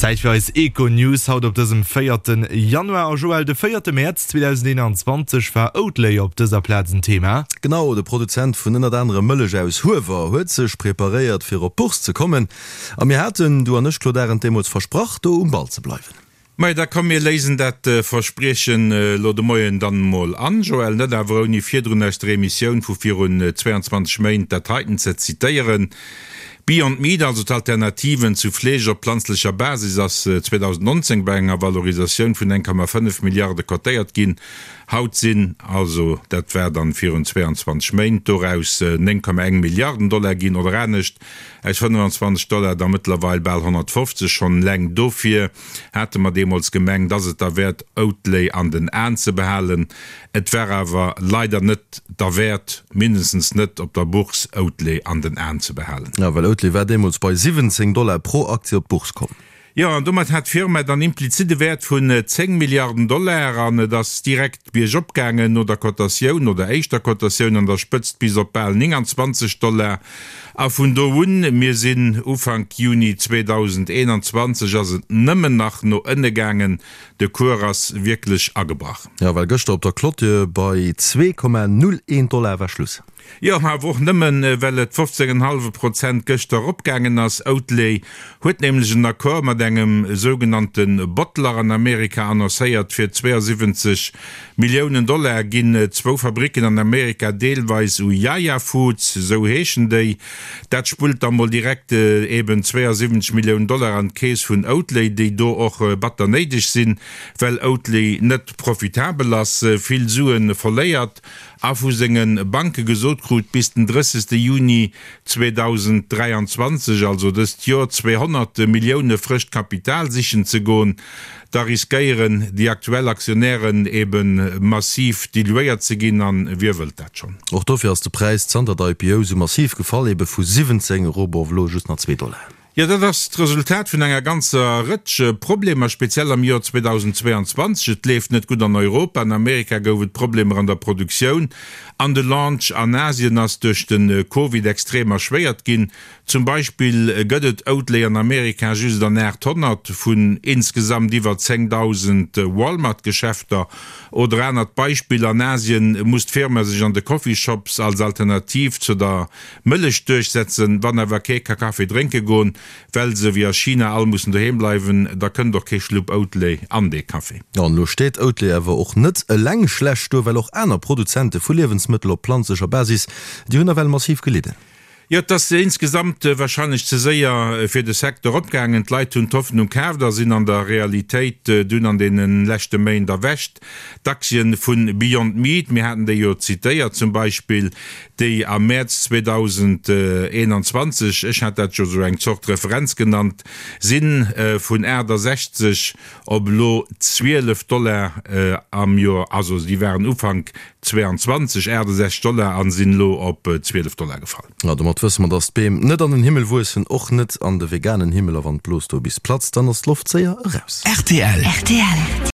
Zäit fir eis Econews haut op dësem véierten Januar. A Joël, de véierte Mäerz 2021 war Oatly op dëser Plaz en Thema. Genau, de Produzent vun ënnert anerem Mëllech aus Huewer huet sech preparéiert fir op d'Bourse ze kommen. A mir haten, du an ech Claude Arend, deemools versprach do um Ball ze bleiwen. Majo, da komm mir léisen dat Verspriechen elo de Moien dann emol an, Joël, net awer ouni virdrun aus der Emissioun vu virun 22 Méint dat heiten ze zitéieren, Beyond Meat, also d'Alternativen zu Fleesch op planzlecher Basis, ass 2019 bei enger Valorisatioun vun 1,5 Milliarde cotéiert ginn. Haut sinn, also dat war dann virun 22 Méint, doraus 9,1 Milliarden Dollar ginn, oder anescht, aus 25 Dollar da mëttlerweil bal 150. Schonn eleng dofir hate mer deemools gemengt, ass et derwäert Oatly an den Aen ze behalen. Et war awer leider net derwäert, mindestens net op der Bourse, Oatly an den Aen ze behalen. Jo, well Oatly war deemools bei 17 Dollar pro Aktie op d'Bourse komm. Jo, an domat hat d'Firma dann implizit e Wäert vun 10 Milliarden Dollar an et ass direkt biergop gaangen no der Cotatioun, no der éischter Cotatioun an der Spëtzt bis op bal 29 Dollar. A vun do un, mir sinn Ufank Juni 2021, ass et nëmmen nach no ënne gaangen. De Cours ass wierklech agebrach. Jo, well gëschter op der Clôture bei 2,01 Dollar war Schluss. Jo, awer och nëmmen, well et 15 en hallwe Prozent gëschter eropgaangen ass. Oatly huet nämlech en Accord mat engem sougenannte Bottler an Amerika annoncéiert. Fir 72 Milliounen Dollar ginn zwou Fabricken an Amerika deelweis u Yaya Foods, esou heeschen déi. Dat spullt da mol direkt eben 72 Milliounen Dollar an d'Keess vun Oatly, déi do och batter néideg sinn, well Oatly net profitabel ass, vill Sue verléiert a vu senge Banke gesot krut, bis den 30 Juni 2023, also dëst Joer, 200 Millioune frëscht Kapital sichen ze goen, da riskéieren déi aktuell Aktionären ebe massiv diluéiert ze ginn, a wie wëllt dat schonn? Och dofir ass de Präis zanter der IPO sou massiv gefall, ebe vu 17 erop op elo just nach zwee Dollar. Jo, dat ass d'Resultat vun enger ganzer Rëtsch Problemer, speziell am Joer 2022. Et leeft net gutt an Europa, an Amerika gouf et Problemer an der Produktioun an de Launch an Asien ass duerch de Covid extrem erschwéiert ginn. Zum Beispill gëtt et Oatly an Amerika just an 800 vun insgesamt iwwer 10.000 Walmart-Geschäfter. Oder anert Beispill, An Asien muss d'Firma sech an de Coffeeshops als Alternativ zu der Mëllech duerchsetzen. Wann awer kee ka Kaffi drénke goen, well se wéi a China all mussen doheem bleiwen, da kënnt och kee Schlupp Oatly an dee Kaffi. An elo steet Oatly awer och net eleng schlecht do, well och aner Produzente vu Liewensmëttel op planzlecher Basis, déi hunn nawell massiv gelidden. Jo, et ass insgesamt warscheinlech ze séier fir de Secteur opgaangen. D'Leit hunn d'Hoffnung kaaft a sinn an der Realitéit dunn an deene leschte Méint erwächt. D'Aktien vu Beyond Meat, mir haten déi jo zitéiert, zum Beispill, déi am Mäerz 2021, ech hat dat jo esou eng Zort Referenz genannt, si vun 68 op elo 12 Dollar am Joer, also déi waren Ufank 22 68 Dollar a sinn elo op 12 Dollar gefall. Jo, domat wësse mer, dass d'Beem net an den Himmel wuessen, och net an de veganen Himmel, a wann d'Blos do bis platzt, dann ass d'Loft séier eraus. Rtl.